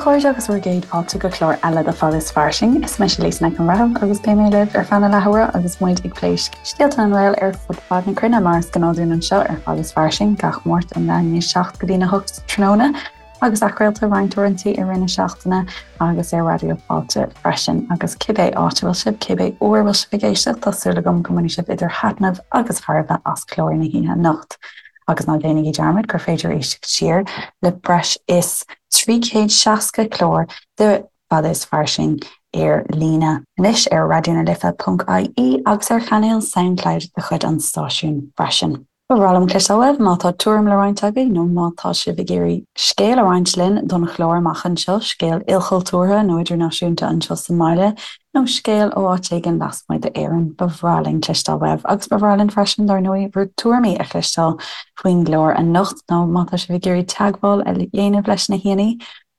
chairde agus bhur gcéad fáilte go clár eile de Fada is Fairsing. Is mise Lisa Nic an Bhreithimh agus beidh mé libh ar feadh na leathuaire agus muid ag plé scéalta na nGael ar fud fad na cruinne mar is gnáth dúinn anseo ar Fada is Fairsing gach Máirt ón leath i ndiaidh 7 go dtína 8 tráthnóna agus athchraolta roinnt uaireanta i rith na seachtaine agus ar Raidió Fáilte freisin. Agus cibé áit a bhfuil sibh, cibé uair a bhfuil sibh ag éisteacht, tá súil agam go mbainfidh sibh idir thaitneamh agus thairbhe as clár na hoíche anocht. Agus ná déanaigí dearmad gur féidir éisteacht siar le breis is 360 clár de Fada is Fairsing ar líne anois ar raidionalife.ie agus ar chainéal Soundcloud de chuid an stáisiúin freisin. Ba bhreá liom cloisteáil uaibh má tá tuairim le roinnt agaibh nó má tá sibh ag iarraidh scéal a roinnt linn don chlár amach anseo, scéal ilchultúrtha nó idirnáisiúnta anseo sa mbaile nó scéal ó áit éigin lasmuigh d'Éirinn. Ba bhreá linn cloisteáil uaibh agus ba bhreá linn freisin, dar ndóigh, bhur dtuairimí a chloisteáil faoin gclár anocht nó má tá sibh ag iarraidh teagmháil a dhéanamh leis na haíonna,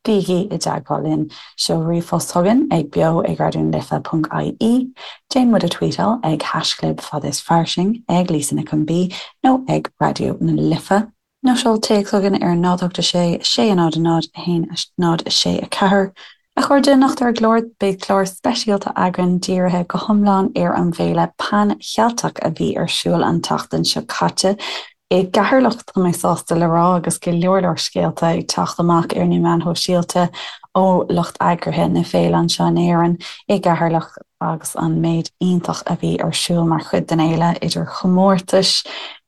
Bígí i dteagmháil linn. Seol ríomhphost chugainn ag beo ag raidionalife.ie, déan muid a tweetáil ag haischlib fada is fairsing, ag Lisa Nic an B nó ag Raidió na Life, nó seol téacs chugainn ar 0 8 6 6 0 0 1 0 6 4. A chairde, anocht ar an gclár, beidh clár speisialta againn dírithe go hiomlán ar an bhféile Pan Cheilteach a bhí ar siúl an tseachtain seo caite. I gCeatharlach, tá mé sásta le rá, agus go leor leor scéalta ag teacht amach ar na meáin shóisialta ó lucht eagraithe na féile anseo in Éirinn, i gCeatharlach, agus an méid iontach a bhí ar siúl mar chuid den fhéile, idir chomórtais,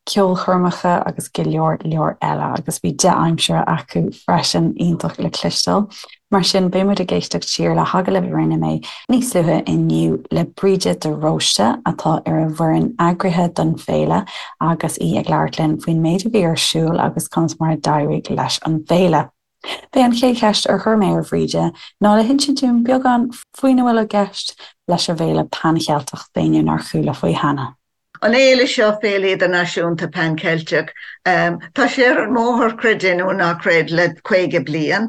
ceolchoirmeacha agus go leor leor eile. Agus bhí dea-aimsire acu freisin, iontach le cloisteáil. Mar sin, beidh muid ag éisteacht siar le hagallamh a rinne mé níos luaithe inniu le Bríde de Róiste, atá ar an bhfoireann eagraithe don bhféile, agus í ag labhairt linn faoin méid a bhí ar siúl agus conas mar a d'éirigh leis an bhféile. B'é an chéad cheist ar chuir mé ar Bhríde ná le hinsint dúinn beagán faoina bhfuil i gceist leis an bhféile Pan-Cheilteach d'éinne nár chuala faoi cheana. An fhéile seo, Féile Idirnáisiúnta Pan Cheilteach, tá sé ar an mbóthar, creid é nó ná creid, le 50 bliain.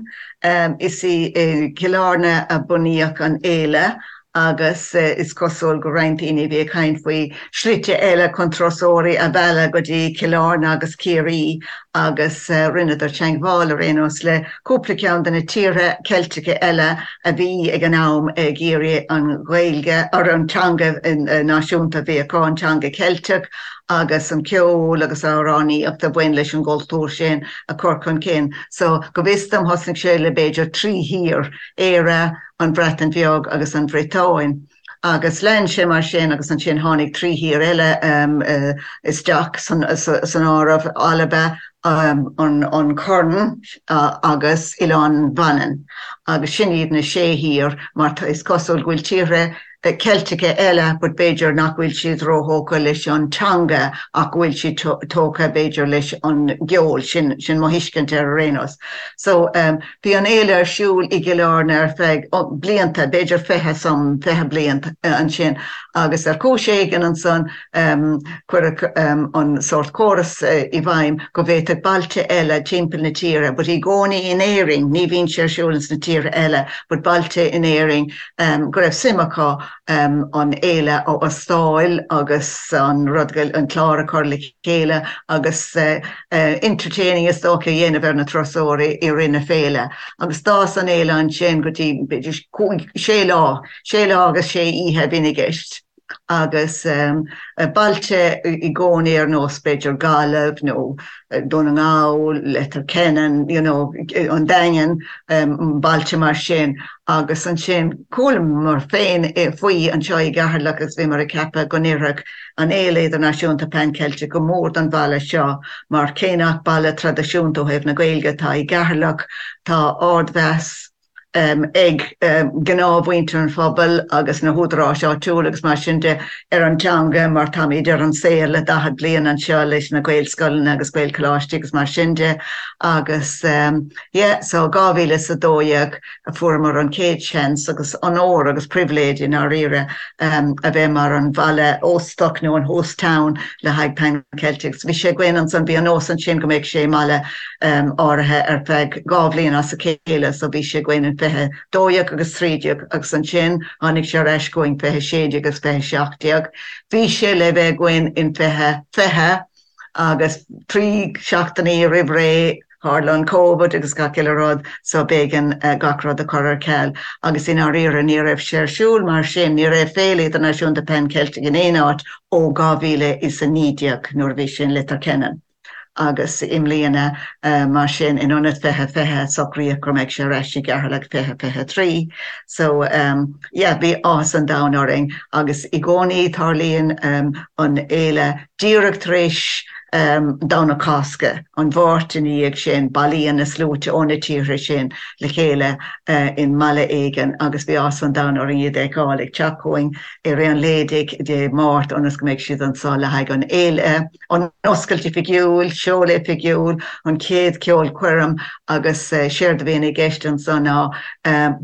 Is i gCill Airne a bunaíodh an fhéile agus is cosúil go roinnt daoine a bhí ag caint faoi shlite eile chun turasóirí a mhealladh go dtí Cill Airne agus Ciarraí agus rinneadar teagmháil ar aon nós le cúpla ceann de na tíortha Ceilteacha eile a bhí ag an am ag iarraidh an Ghaeilge, or an teanga náisiúnta a bhí acu, an teanga Cheilteach agus an ceol agus amhránaíocht a bhain leis an gcultúr sin a chur chun cinn. So, go bhfios dom, thosnaigh sé le b'fhéidir trí thír, Éire, an Bhreatain Bheag agus an Bhriotáin. Agus lean sé mar sin agus ansin tháinig trí thír eile isteach san áireamh, Alba, an Corn agus Oileán Mhanann. Agus sin iad na sé thír mar is cosúil go bhfuil tíortha Ceilteacha eile but b'fhéidir nach bhfuil siad róthógtha leis an teanga ach go bhfuil siad tógtha b'fhéidir leis an gceol, sin mo thuiscint air ar aon nós. So. Bhí an fhéile ar siúl i gCill Airne ar feadh blianta, b'fhéidir 20 some, 20 bliain ansin agus ar chúis éigin ansan cuireadh an sórt córas i bhfeidhm go bhféadfadh bailte eile timpeall na tíre, but i gcónaí in Éirinn, ní bhíonn sé ar siúl ins na tíortha eile, but bailte in Éirinn go raibh suim acu an fhéile a óstáil agus an rud, an clár a chur le chéile agus entertaining is dócha a dhéanamh ar na turasóirí i rith na féile. Agus d'fhás an fhéile ansin go dtí b'fhéidir cúig, sé lá, sé lá agus sé oíche a bhíonn i gceist. Agus bailte i gcónaí ar nós b'fhéidir Gaillimh nó Dún na nGall, Leitir Ceanainn, you know, an Daingean, bailte mar sin. Agus ansin chualamar féin faoi anseo i gCeatharlach agus bhíomar ag ceapadh go n-oirfeadh an Fhéile Idirnáisiúnta Pan Ceilteach go mór don bhaile seo mar cé nach baile traidisiúnta ó thaobh na Gaeilge atá i gCeatharlach, tá ardmheas ag gnáthmhuintir an phobail agus na húdaráis áitiúla agus mar sin de ar an teanga mar táimid ar an saol le 40 bliain anseo leis na Gaelscoileanna agus Gaelcholáistí agus mar sin de agus yeah so 2012 a fuaireamar an chéad seans agus onóir agus pribhléid i ndáiríre a bheith mar an bhaile óstach nó an host town le haghaidh Pan Celtic. Bhí sé againn ansan, bhí an nós ansin go mbeadh sé i mbaile áirithe ar feadh 2 bhliain as a chéile so bhí sé againn in 2012 agus 13 agus ansin tháinig sé ar ais chugainn 2016 agus 2017. Bhí sé le bheith againn in 2020 agus 3 seachtainí roimh ré. Tharla an Covid agus gach uile rud so b'éigean gach rud a chur ar ceal agus i ndáiríre ní raibh sé ar siúl mar sin, ní raibh Féile Idirnáisiúnta Pan Ceilteach in aon áit ó 2019 nuair a bhí sé in Leitir Ceanainn agus i mbliana mar sin in ionad 2020 socraíodh go mbeadh sé ar ais i gCeatharlach 2023 so yeah bhí áthas an domhain orainn agus i gcónaí tarlaíonn an fhéile díreach tar éis Domhnach Cásca, an Mháirt ina dhiaidh sin, bailíonn na sluaite ó na tíortha sin le chéile i mbaile éigin agus bhí áthas an domhain orainn iad a fheiceáil ag teacht chugainn i rith an lae Dé Máirt ionas go mbeidh siad anseo le haghaidh an fhéile, an oscailt oifigiúil, seoladh oifigiúil, an chéad cheolchoirm agus séard a bhíonn i gceist anso ná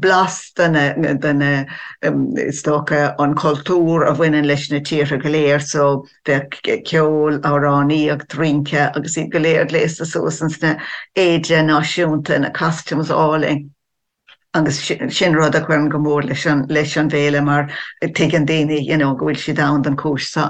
blas de na, is dócha, an cultúr a bhaineann leis na tíortha go léir so Bheadh ceol, amhránaíocht, rince agus iad go léir gléasta suas ins na éide náisiúnta, na costumes álainn agus sin rud a chuireann go mór leis an leis an bhféile mar tuigeann daoine you know go bhfuil siad ann don chúis seo.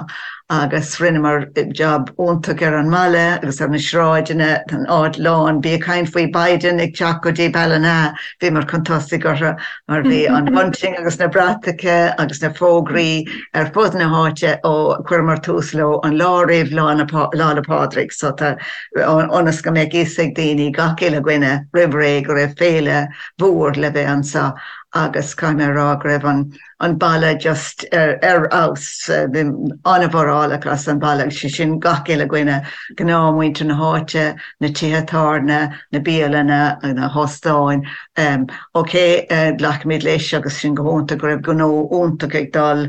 Agus rinneamar jab iontach ar an mbaile agus ar na sráideanna, tá an áit lán, bí ag caint faoi Biden ag teacht go dtí Ballina, bhíomar chun tosaigh orthu mar bhí an bunting agus na bratacha agus na fógraí ar fud na háite ó chuireamar tús leo an lá roimh Lá 'le Pádraig so tá ionas go mbeadh fhios ag daoine, gach uile dhuine, roimh ré go raibh féile mhór le bheith anseo agus caithfidh mé a rá go raibh an an baile just ar ar fheabhas, bhí an-mhórálach as an bhaile agus sé sin gach uile dhuine, gnáthmhuintir na háite, na tithe tábhairne, na bialanna, na hóstáin. Ok, glacaimid leis agus sin go hiontach go raibh gnó iontach ag dul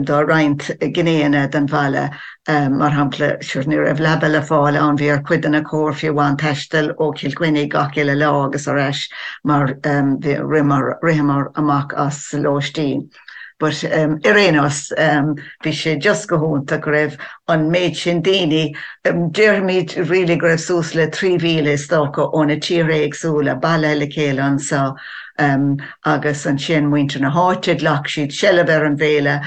do roinnt gnéanna den bhaile. Mar shampla, sure ní raibh leaba le fáil ann, bhí ar chuid de na cóir fiú amháin taisteal ó Chill Chainnigh gach uile lá agus ar ais mar ritheamar amach as lóistín. But ar aon nós, bhí sé just go hiontach go raibh an méid sin daoine, déarfaimid really go raibh suas le 3,000 is dócha ó na tíortha éagsúla bailithe le chéile anseo agus ansin muintir na háite, ghlac siad seilbh ar an bhféile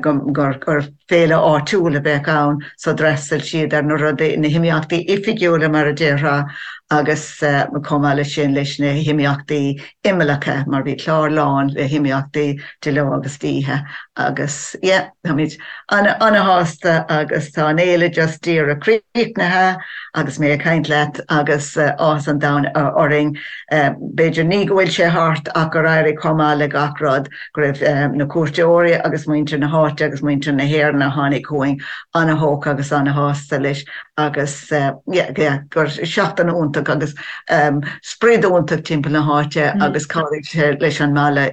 gur féile áitiúil a bheadh ann so d'fhreastail siad ar na rudaí, na himeachtaí oifigiúla mar a déarfá agus chomh maith leis sin leis na himeachtaí imeallacha mar bhí clár lán le himeachtaí de ló agus d'oíche agus yeah táimid ana-shásta agus tá an fhéile just díreach críochnaithe agus mé ag caint leat agus áthas an domhain orainn b'fhéidir ní go bhfuil sé thart ach gur éirigh chomh maith le gach rud go raibh na cuairteoirí agus muintir na háite agus muintir na hÉireann a tháinig chugainn ana-thógtha agus ana-shásta leis agus yeah yeah gur seachtain iontach agus sprid iontach timpeall na háite agus chabhraigh sé leis an mbaile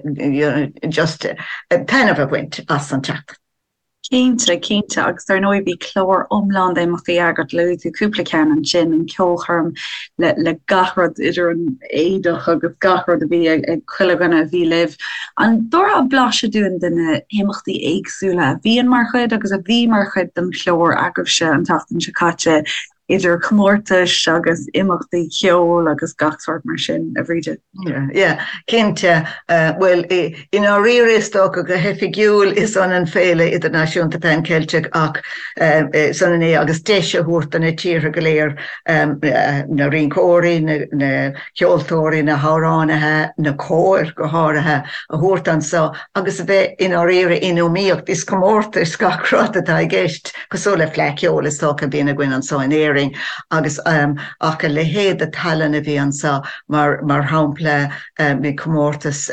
just taitneamh a bhaint as an tseachtain. Cinnte, cinnte, agus dar ndóigh bhí clár iomlán d'imeachtaí agat, luaigh tú cúpla ceann ansin, an ceolchoirm le le gach rud idir an éadach agus gach rud a bhí ag ag chuile dhuine a bhí libh. An dtabharfá blaiseadh dúinn de na himeachtaí éagsúla a bhíonn mar chuid agus a bhí mar chuid den chlár agaibhse an tseachtain seo caite, idir chomórtais agus imeachtaí ceoil agus gach sórt mar sin, a Bhríde? Yeah, cinnte. Bhuel, i ndáiríre is dócha go hoifigiúil is ionann Féile Idirnáisiúnta Pan Ceilteach ach is ionann é agus deis a thabhairt do na tíortha go léir, na rinceoirí, na ceoltóirí, na hamhránaithe, na cóir go háirithe, a thabhairt anso agus a bheith i ndáiríre in iomaíocht. Is comórtas gach rud atá i gceist, cosúil le Fleadh Cheoil is dócha a bhíonn againn anso in Éirinn agus ach a leithéid de tallann a bhí anso mar mar shampla bhí comórtas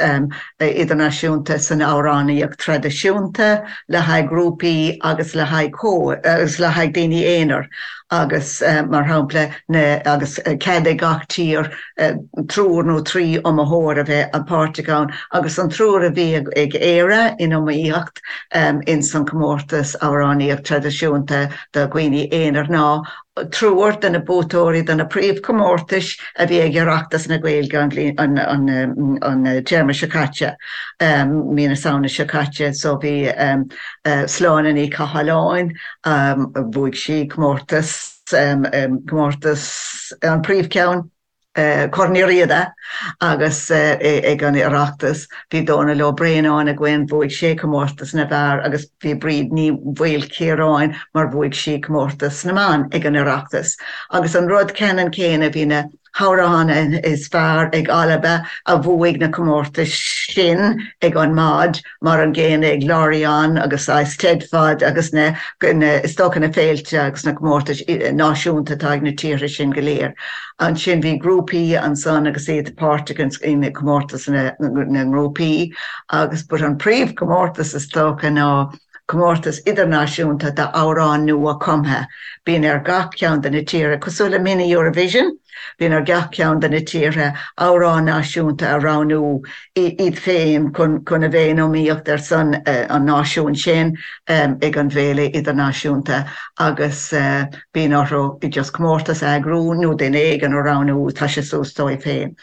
idirnáisiúnta san amhránaíocht traidisiúnta le haghaidh grúpaí agus le haghaidh cóir agus le haghaidh daoine aonair agus mar shampla na agus cead ag gach tír triúr nó trí iomaitheoir a bheith páirteach ann agus an triúr a bhí ag Éire in iomaíocht ins an comórtas amhránaíocht traidisiúnta do dhaoine aonair ná triúr de na buaiteoirí de na príomhchomórtais a bhí ag Oireachtas na Gaeilge an bhliain an téarma seo caite, mí na Samhna seo caite. So bhí Sláine Ní Chathalláin, bhuaigh sí comórtas, comórtas an príomhcheann, Corn Uí Riada agus ag an Oireachtas bhí Dónal Ó Braonáin againn, bhuaigh sé comórtas na bhfear agus bhí Bríd Ní Mhaoilchiaráin mar bhuaigh sí comórtas na mban ag an Oireachtas. Agus an rud ceannann céanna, bhí na. hamhráin is fearr ag Alba a bhuaigh na comórtais sin ag an MOD, mar an gcéanna ag Lorient agus Eisteddfod agus na, is dócha na féilte agus na comórtais náisiúnta atá ag na tíortha sin go léir. Ansin bhí grúpaí ansan agus iad páirteach in comórtas na ngrúpaí agus but an príomhchomórtas is dócha ná comórtas idirnáisiúnta d'amhráin nua cumtha. Bíonn ar gach ceann de na tíortha, cosúil le Mini Eurovision, bíonn ar gach ceann de na tíortha amhrán náisiúnta a roghnú iad féin chun a bheith in iomaíocht ar son an náisiúin sin ag an bhféile idirnáisiúnta agus bíonn orthu just comórtas a eagrú nó duine éigin a roghnú, tá sé suas dóibh féin.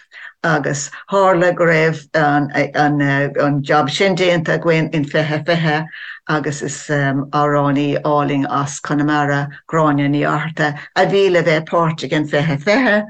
Agus tharla go raibh an jab sin déanta againn in 2020 agus is amhránaí álainn as Conamara, Gráinne Ní Fhátharta, a bhí le bheith páirteach in 2020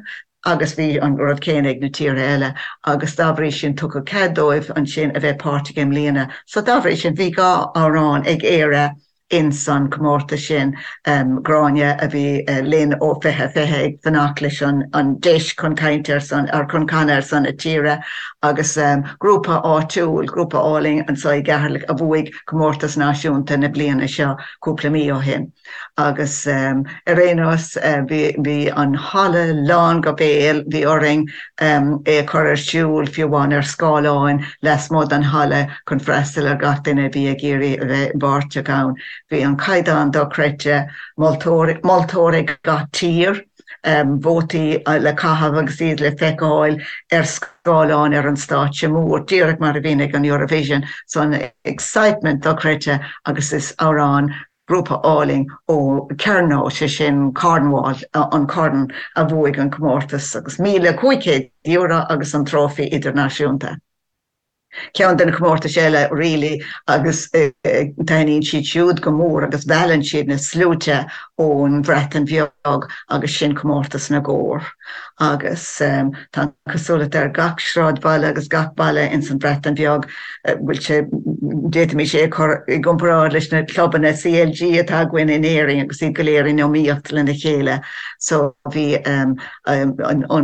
agus bhí an rud céanna ag na tíortha eile agus dá bhrí sin tugadh cead dóibh ansin a bheith páirteach i mbliana. So dá bhrí sin bhí 2 amhrán ag Éire ins an comórtas sin, Gráinne a bhí linn ó 2020 ag fanacht leis an deis chun caint ar son, or chun canadh ar son a tíre agus grúpa áitiúil, grúpa álainn anseo i gCeatharlach a bhuaigh comórtas náisiúnta na bliana seo cúpla mí ó shin. Agus ar aon nós bhí an halla lán go béal, bhí orainn é a chur ar siúl fiú amháin ar scáileáin lasmuigh den halla chun freastal ar gach duine a bhí ag iarraidh a bheith páirteach ann. Bhí an caighdeán dochreidte, moltóir, moltóir ag gach tír, vótaí le caitheamh agus iad le feiceáil ar scáileáin ar an stáitse mór, díreach mar a bhíonn ag an Eurovision. So an excitement dochreidte agus is amhrán grúpa álainn ó Kernow, sé sin Cornwall, an Corn, a bhuaigh an comórtas agus €1,500 agus an trófaí idirnáisiúnta. Ceann de na comórtais eile really agus taitníonn siad siúd go mór agus meallann siad na sluaite ón Bhreatain Bheag agus sin comórtas na gcór agus tá an cosúlacht ar gach sráidbhaile agus gach baile ins an Bhreatain Bheag bhfuil sé, d'fhéadfaimis é a chur i gcomparáid leis na clubanna CLG atá againn in Éirinn agus iad go léir in iomaíocht lena chéile. So bhí an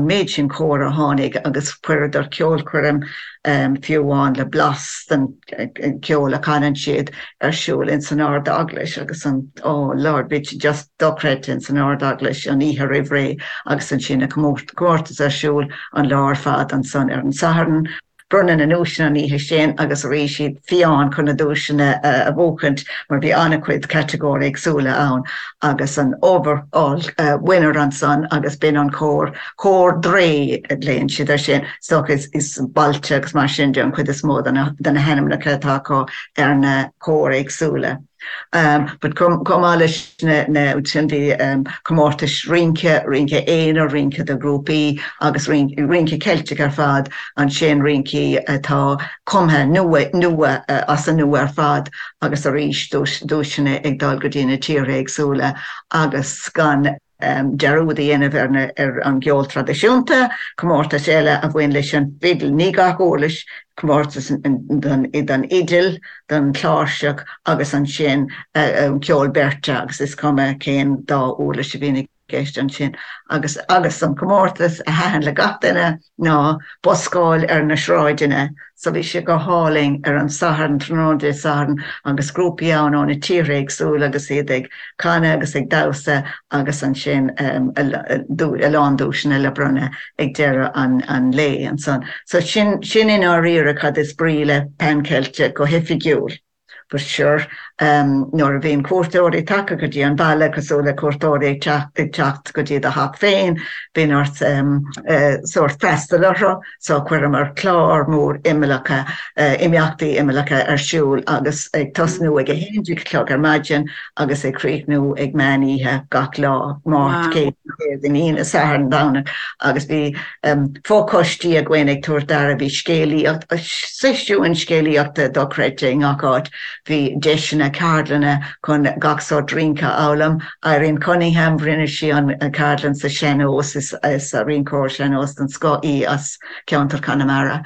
méid sin cór a tháinig agus chuireadar ceolchoirm fiú amháin le blas den cheol a chanann siad ar siúl ins an Ard-Eaglais agus an, oh Lord, bhí sé just dochreidte ins an Ard-Eaglais an oíche roimh ré agus ansin an comórtas ar siúl an lá ar fad ansan ar an Satharn. Bronnadh na nduaiseanna an oíche sin agus arís iad fiáin chun na duaiseanna a bhuachaint mar bhí an-chuid catagóirí éagsúla ann agus an overall winner ansan agus b'in an cór, Cór Dre a ghlaonn siad air sin, is dócha is bailte agus mar sin de an chuid is mó de na hainmneacha atá acu ar na cóir éagsúla. But chomh maith leis na sin bhí comórtais rince, rince aonair, rince do ghrúpaí agus rince Ceilteach ar fad, ansin rincí atá cumtha nua, nua, as an nua ar fad agus arís duaiseanna ag dul go dtí na tíortha éagsúla agus gan dearúd a dhéanamh ar ar an gceol traidisiúnta, comórtais eile a bhain leis an bhfidil, ní gach uirlis, comórtas don fhidil, don chláirseach agus ansin ceol beirte agus is cuma cén dá uirlis a bhíonn i gceist ansin. Agus agus an comórtas a thaitin le gach duine ná buscáil ar na sráideanna. So bhí sé go hálainn ar an Satharn, tráthnóna Dé Sathairn agus grúpaí ann ó na tíortha éagsúla agus iad ag canadh agus ag damhsa agus ansin a lán duaiseanna le bronnadh ag deireadh an lae ansan. So sin sin i ndáiríre cad is brí le Pan Ceilteach go hoifigiúil. But sure, nuair a bhíonn cuairteoirí tagtha go dtí an baile, cosúil le cuairteoirí ag teacht go dtí do theach féin, bíonn ort sórt freastal orthu, so chuireamar clár mór imeallacha, imeachtaí imeallacha ar siúl agus ag tosnú ag 11 a chlog ar maidin agus ag críochnú ag meán oíche gach lá, Máirt, Céadaoin, Aoine, Satharn, Domhnach agus bhí Fochoistí againn ag tabhairt aire, bhí scéalaíocht, seisiúin scéalaíochta dochreidte i ngach áit, bhí deiseanna ceardlanna chun gach sórt rince a fhoghlaim. Irene Cunningham, rinne sí an ceardlann sa sean-nós, is rinceoir sean-nós den scoth í as ceantar Chonamara.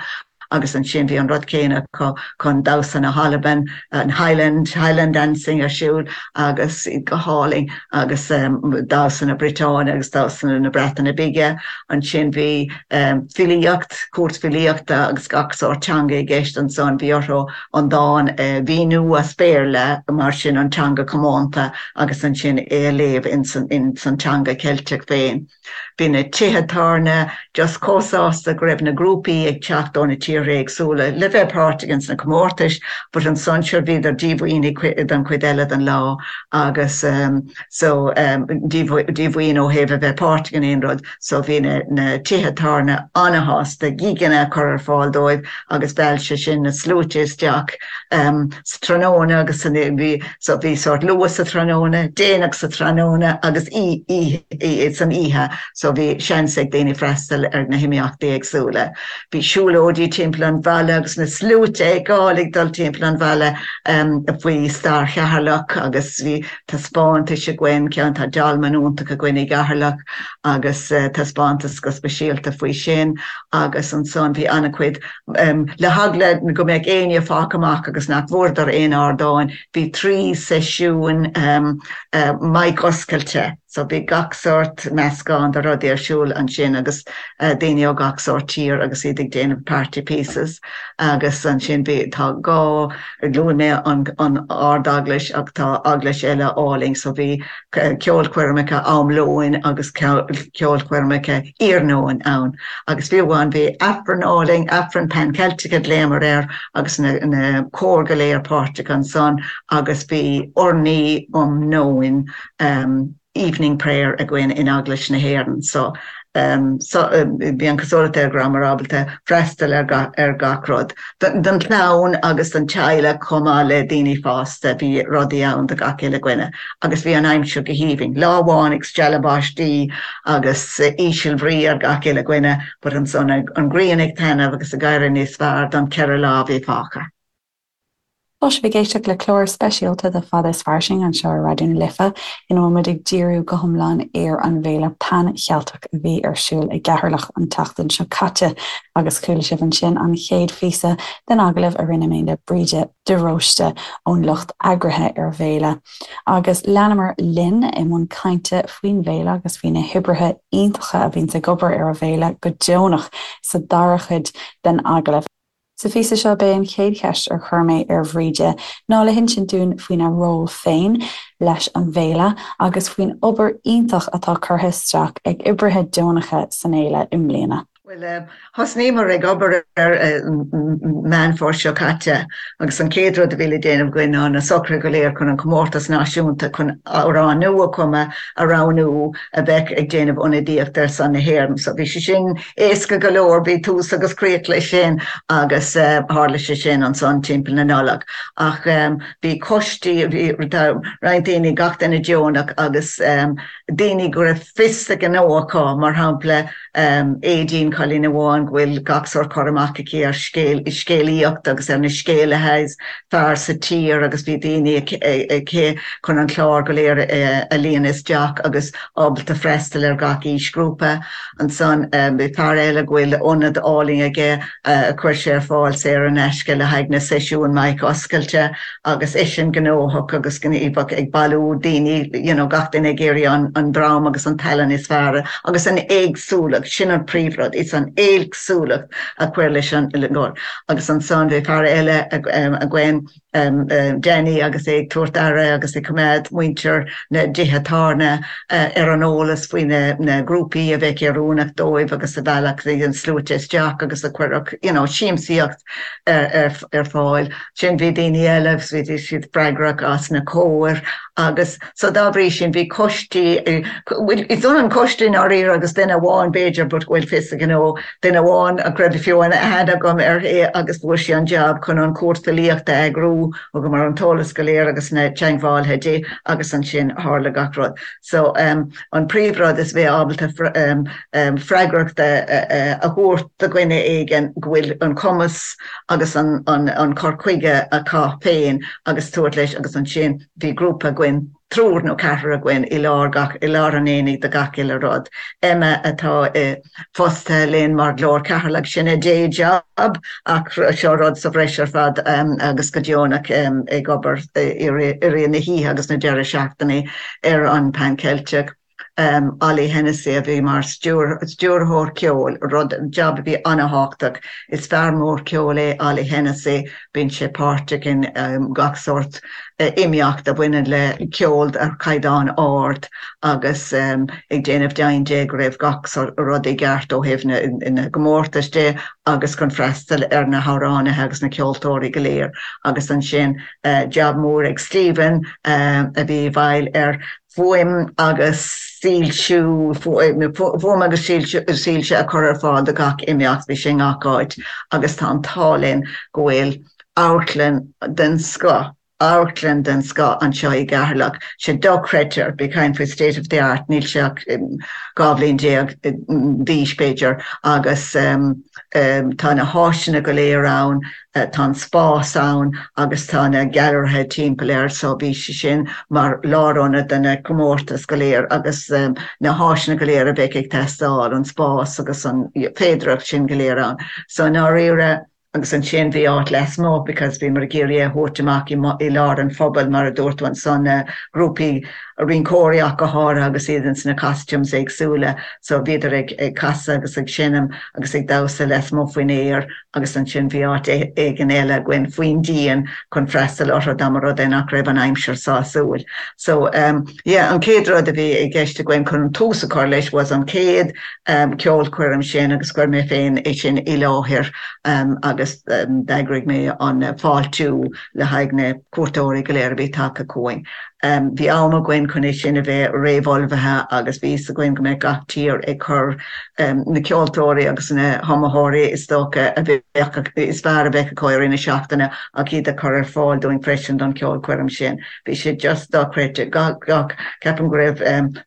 Agus ansin bhí an rud céanna acu chun damhsa na hAlban, an Highland, Highland dancing ar siúl agus go hálainn agus damhsa na Briotáine agus damhsa na Breataine Bige. Ansin bhí filíocht, cúirt filíochta agus gach sórt teanga i gceist ansan. Bhí orthu an dán a mhíniú as Béarla mar sin an teanga comónta agus ansin é a léamh ins an teanga Ceilteach féin. Bhí na tithe tábhairne just chomh sásta go raibh na grúpaí ag teacht ó na tíortha éagsúla le bheith páirteach ins na comórtais but ansan sure bhíodar díomhaoin don chuid eile den lá agus so díomhaoin ó thaobh a bheith páirteach in aon rud so bhí na na tithe tábhairne ana-shásta gigeanna a chur ar fáil dóibh agus mheall sé sin na sluaite isteach sa tráthnóna agus san bhí So bhí sórt luath sa tráthnóna, déanach sa tráthnóna agus san oíche so bhí seans ag daoine freastal ar na himeachtaí éagsúla. Bhí siúlóidí timpeall an bhaile agus na sluaite ag gabháil ag dul timpeall an bhaile faoi stair Cheatharlach agus bhí taispeántais againn, ceann tá dolmen iontach againn i gCeatharlach agus taispeántas go speisialta faoi sin agus ansan bhí an-chuid Le heagla go mbeadh éinne fágtha amach agus nach bhfuaireadar aon ardáin, bhí 3 seisiún mic oscailte so bhí gach sórt meascán de rudaí ar siúl ansin agus daoine ó gach sórt tír agus iad ag déanamh party pieces agus ansin bhí, tá dhá, luaigh mé an Ard-Eaglais ach tá eaglais eile álainn so bhí ceolchoirmeacha am lóin agus ceolchoirmeacha iarnóin ann agus fiú amháin bhí Aifreann álainn, Aifreann Pan Celtic a ghlaomar air agus na cóir go léir páirteach ansan agus bhí urnaí um nóin, evening prayer, againn in Eaglais na hÉireann so so bhí an cosúlacht air go rabhamar ábalta freastal ar ar gach rud. Don chlann agus don teaghlach chomh maith le daoine fásta bhí rudaí ann do gach uile dhuine agus bhí an aimsir go haoibhinn. Lá amháin ag stealladh báistí agus ísealbhrí ar gach uile dhuine but ansan an ghrian ag taitneamh agus ag éirí níos fearr don cheithre lá a bhí fágtha. Tá sibh ag éisteacht le clár speisialta de Fada is Fairsing anseo ar Raidió na Life ina bhfuil muid ag díriú go hiomlán ar an bhFéile Pan Cheilteach a bhí ar siúl i gCeatharlach an tseachtain seo caite agus chuala sibh ansin an chéad phíosa den agallamh a rinne mé le Bríde de Róiste ón lucht eagraithe ar an bhféile. Agus leanamar linn i mbun cainte faoin bhféile agus faoi na hoibrithe iontacha a bhíonns ag obair ar an bhféile go deonach sa dara cuid den agallamh. Sa phíosa seo, b'é an chéad cheist ar chuir mé ar Bhríde ná le hinsint dúinn faoina ról féin leis an bhféile agus faoin obair iontach atá curtha isteach ag oibrithe deonacha san fhéile i mbliana. Bhuel, thosnaíomar ag obair ar Meán Fómhair seo caite agus an chéad rud a bhí le déanamh againn ná na socruithe go léir chun an comórtas náisiúnta chun amhrán nua a chumadh a roghnú a bheadh ag déanamh ionadaíocht ar son na hÉireann. So bhí sé sin Éasca go leor, bhí tús agus críoch leis sin agus tharla sé sin ansan timpeall na Nollag. Ach bhí coistí, bhí roinnt daoine, gach duine deonach agus daoine go raibh fios a ngnó acu, mar shampla Aedín, cailín amháin go bhfuil gach sórt cur amach aici ar scéalaíocht agus ar na scéalaithe is fearr sa tír agus bhí daoine aici chun an clár go léir a líonadh isteach agus ábalta freastal ar gach aoisghrúpa. Ansan bhí fear eile go bhfuil ionad álainn aige a chuir sé ar fáil saor in aisce le haghaidh na seisiúin mic oscailte agus eisean gnóthach agus gníomhach ag bailiú daoine, you know, gach duine ag iarraidh an dream agus an tallann is fearr agus an éagsúlacht, sin an príomhrud, is an éagsúlacht a chuir leis an gcór. Agus ansan bhí fear eile againn, Danny agus é ag tabhairt aire agus ag coimeád muintir na dtithe tábhairne ar an eolas faoi na grúpaí a bheadh oiriúnach dóibh agus a mheallfadh an sluaite isteach agus a chuirfeadh you know siamsaíocht ar fáil. Sin bhí daoine eile agus bhí siad freagrach as na cóir agus so dá bhrí sin bhí coistí, is ionann coiste i ndáiríre agus duine amháin b'fhéidir but go bhfuil fios a ghnó Duine amháin a raibh fiú aithne agam uirthi agus fuair sí an jab chun an chúirt filíochta a eagrú, thugamar an t-eolas go léir agus na teagmhálaithe di agus ansin tharla gach rud. So an príomhrud is bheith ábalta freagracht a thabhairt do dhuine éigin go bhfuil an cumas agus an cur chuige acu féin agus tabhairt leis agus ansin bhí grúpa againn. triúr nó ceathrar againn i lár gach, i lár an aonaigh do gach uile rud. Emma atá i fostaithe linn mar Ghlór Cheatharlach, sin a day job ach seo rud sa bhreis ar fad agus go deonach ag obair i rith na hoíche agus na deireadh seachtaine ar an Pan Ceilteach. Ollie Hennessy a bhí mar stiúrthóir ceoil, rud, jab a bhí an-thábhachtach. Is fear mór ceoil é Ollie Hennessy, bíonn sé páirteach in gach sórt imeacht a bhaineann le ceol ar chaighdeán ard agus ag déanamh deimhin de go raibh gach rud i gceart ó thaobh na gcomórtas de agus chun freastal ar na hamhránaithe agus na ceoltóirí go léir. Agus ansin jab mór ag Stephen a bhí i bhfeighil ar fuaim agus soilsiú, fuaim agus soilse a chur ar fáil do gach imeacht, bhí sé i ngach áit agus tá an t-ádh linn go bhfuil amharclann den scoth, amharclann den scoth anseo i gCeatharlach, sé dochreidte, bí ag caint faoi state of the art, níl sé ach 12 bhliain d'aois b'fhéidir agus tá na háiseanna go léir ann, Tá an spás ann agus tá na gailearaithe timpeall air so bhí sé sin mar lárionad do na comórtais go léir agus na háiseanna go léir a bheadh ag teastáil, an spás agus an féidearthacht sin go léir ann. So i ndáiríre, agus ansin bhí áit lasmuigh because bhíomar ag iarraidh é a thabhairt amach i lár an phobail mar a dúirt tú ansan, na grúpaí rinceoirí ach go háirithe agus iad ins na costumes éagsúla so bhíodar ag casadh agus ag seinm agus ag damhsa lasmuigh faoin aer agus ansin bhí áit éigin eile againn faoin díon chun freastal orthu dá mba rud é nach raibh an aimsir sásúil. So yeah, an chéad rud a bhí i gceist againn chun an tús a chur leis was an chéad ceolchoirm sin agus chuir mé féin é sin i láthair agus d'eagraigh mé an fáiltiú le haghaidh na cuairteoirí go léir a bhí tagtha chugainn. Bhí am againn chun é sin a bheith réamhullmhaithe agus bhí fhios againn go mbeadh gach tír ag cur na ceoltóirí agus na hiomaitheoirí is dócha a bheadh is fearr a bheadh acu i rith na seachtaine ach iad a chur ar fáil dúinn freisin don cheolchoirm sin. Bhí sé just dochreidte. Gach, gach, ceapaim go raibh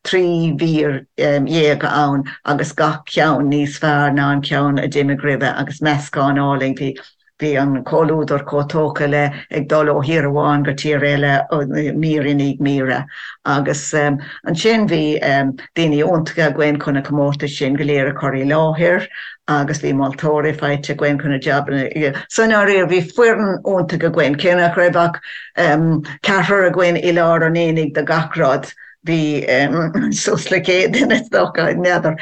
13 mhír ann agus gach ceann níos fearr ná an ceann a d'imigh roimhe agus meascán álainn. Bhí Bhí an comhluadar chomh tógtha le ag dul ó thír amháin go tír eile mír i ndiaidh míre. Agus ansin bhí daoine iontacha againn chun na comórtais sin go léir a chur i láthair agus bhí moltóirí faighte againn chun na jabanna. So i ndáiríre bhí foireann iontach againn, cé nach raibh ach ceathrar againn i lár an aonaigh do gach rud. Bhí suas le 100 duine is dócha, n'fheadar,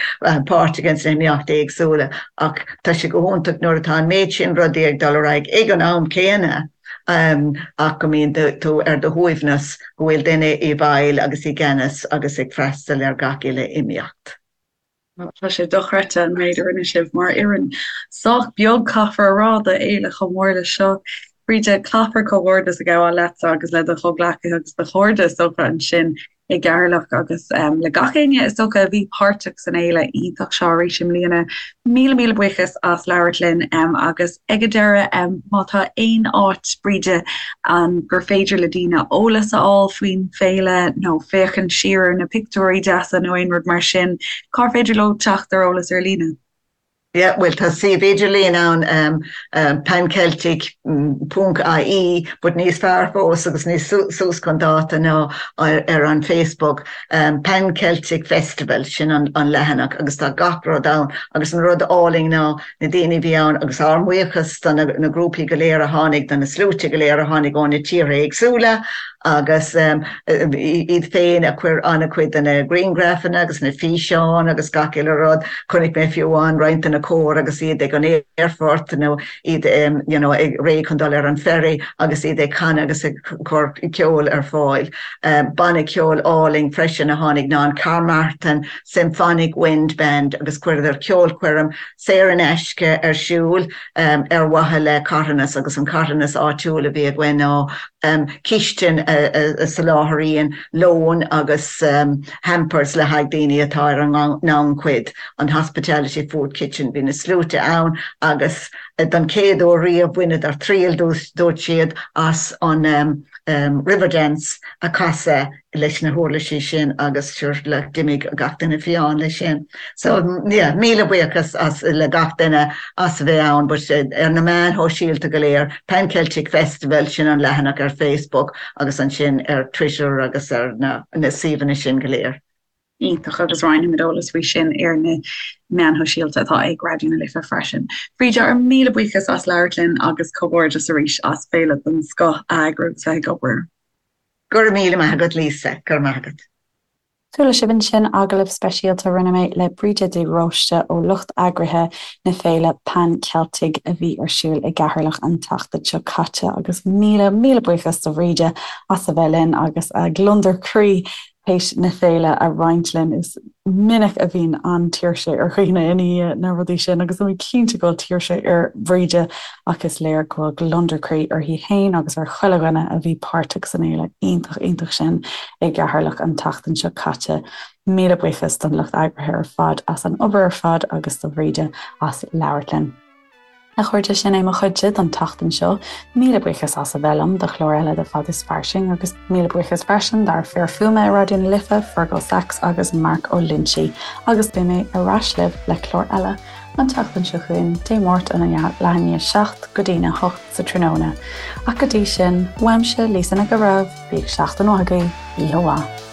páirteach ins na himeachtaí éagsúla ach tá sé go hiontach nuair atá an méid sin rudaí ag dul ar aghaidh ag an am céanna ach go mbíonn tú ar do shuaimhneas go bhfuil duine i bhfeighil agus i gceannas agus ag freastal ar gach uile imeacht. Tá sé dochreidte an méid a rinne sibh mar fhoireann. Sách beag caithfear a rá do fhéile chomh mór leis seo. Bríde, caithfear comhghairdeas a ghabháil leatsa agus le do chomhghleacaithe agus do chairde is dócha ansin i gCeatharlach agus le gach éinne is dócha a bhí páirteach san fhéile iontach seo arís i mbliana. Míle míle buíochas as labhairt linn agus ag an deireadh má tá aon áit, Bríde, ann gur féidir le daoine eolas a fháil faoin bhféile nó féachaint siar ar na pictiúirí deasa nó aon rud mar sin, cár féidir leo teacht ar eolas ar líne? Yeah, bhuel tá suíomh idirlín ann, panceltic ponc ie, but níos fearr fós agus níos suas chun dáta ná ar an Facebook, Pan Celtic Festival, sin an leathanach agus tá gach rud ann agus an rud álainn ná na daoine a bhí ann agus ár mbuíochas do na grúpaí go léir a tháinig, do na sluaite go léir a tháinig ó na tíortha éagsúla agus iad féin a chuir an-chuid de na grianghrafanna agus na físeáin agus gach uile rud. Chonaic mé fiú amháin roinnt de na cóir agus iad ag an aerfort nó iad you know ag réidh chun dul ar an ferry agus iad ag canadh agus ag cur ceoil ar fáil. Banna ceoil álainn freisin a tháinig ná an Carmarthen Symphonic Wind Band agus chuireadar ceolchoirm saor in aisce ar siúl ar mhaithe le carthanas agus an carthanas áitiúil a bhí againn ná cistin a soláthraíonn lón agus hampers le haghaidh daoine atá ar an ngannchuid, an Hospitality Food Kitchen. Bhí na sluaite ann agus don chéad uair riamh bhaineadar triail, dúirt siad, as an Riverdance a chasadh leis na huirlisí sin agus sure like d'imigh gach duine fiáin leis sin. So yeah, míle buíochas as le gach duine as a bheith ann but ar na meáin shóisialta go léir, Pan Celtic Festival, sin an leathanach ar Facebook agus ansin ar Twitter agus ar na na suíomhanna sin go léir. Iontach, agus roinnfimid eolas faoi sin ar na meáin shóisialta atá ag Raidió na Life freisin. Bríde, ár míle buíochas as labhairt linn agus comhghairdeas arís as féile den scoth a eagrú agus bheith ag obair. Go raibh míle maith agat Lisa, go raibh maith agat. Chuala sibh ansin agallamh speisialta a rinne mé le Bríde de Róiste ó lucht eagraithe na féile Pan Celtic a bhí ar siúl i gCeatharlach an tseachtain seo caite agus míle, míle buíochas do Bhríde as a bheith linn agus a gliondar croí théis na féile a roinnt linn. Is minic a bhíonn an-tuirse ar dhaoine i ndiaidh na rudaí sin agus tá mé cinnte go bhfuil tuirse ar Bhríde ach is léir go bhfuil gliondar croí uirthi féin agus ar chuile dhuine a bhí páirteach san fhéile iontach iontach sin i gCeatharlach an tseachtain seo caite. Míle buíochas don lucht eagraithe ar fad as an obair ar fad agus do Bhríde as labhairt linn. A chairde, sin é mo chuidse don tseachtain seo. Míle buíochas as a bheith liom do chlár eile de Fad is Fairsing agus míle buíochas freisin dár fir fuaime i Raidió na Life, Fergal Sachs agus Mark Ó Loinsigh agus beidh mé ar ais libh le clár eile an tseachtain seo chugainn, Dé Máirt óna leath i ndiaidh 7 go dtína 8 sa tráthnóna. Ach go dtí sin, uaimse, Lisa Nic an Bhreithimh, bíodh seachtain mhaith agaibh, oíche mhaith.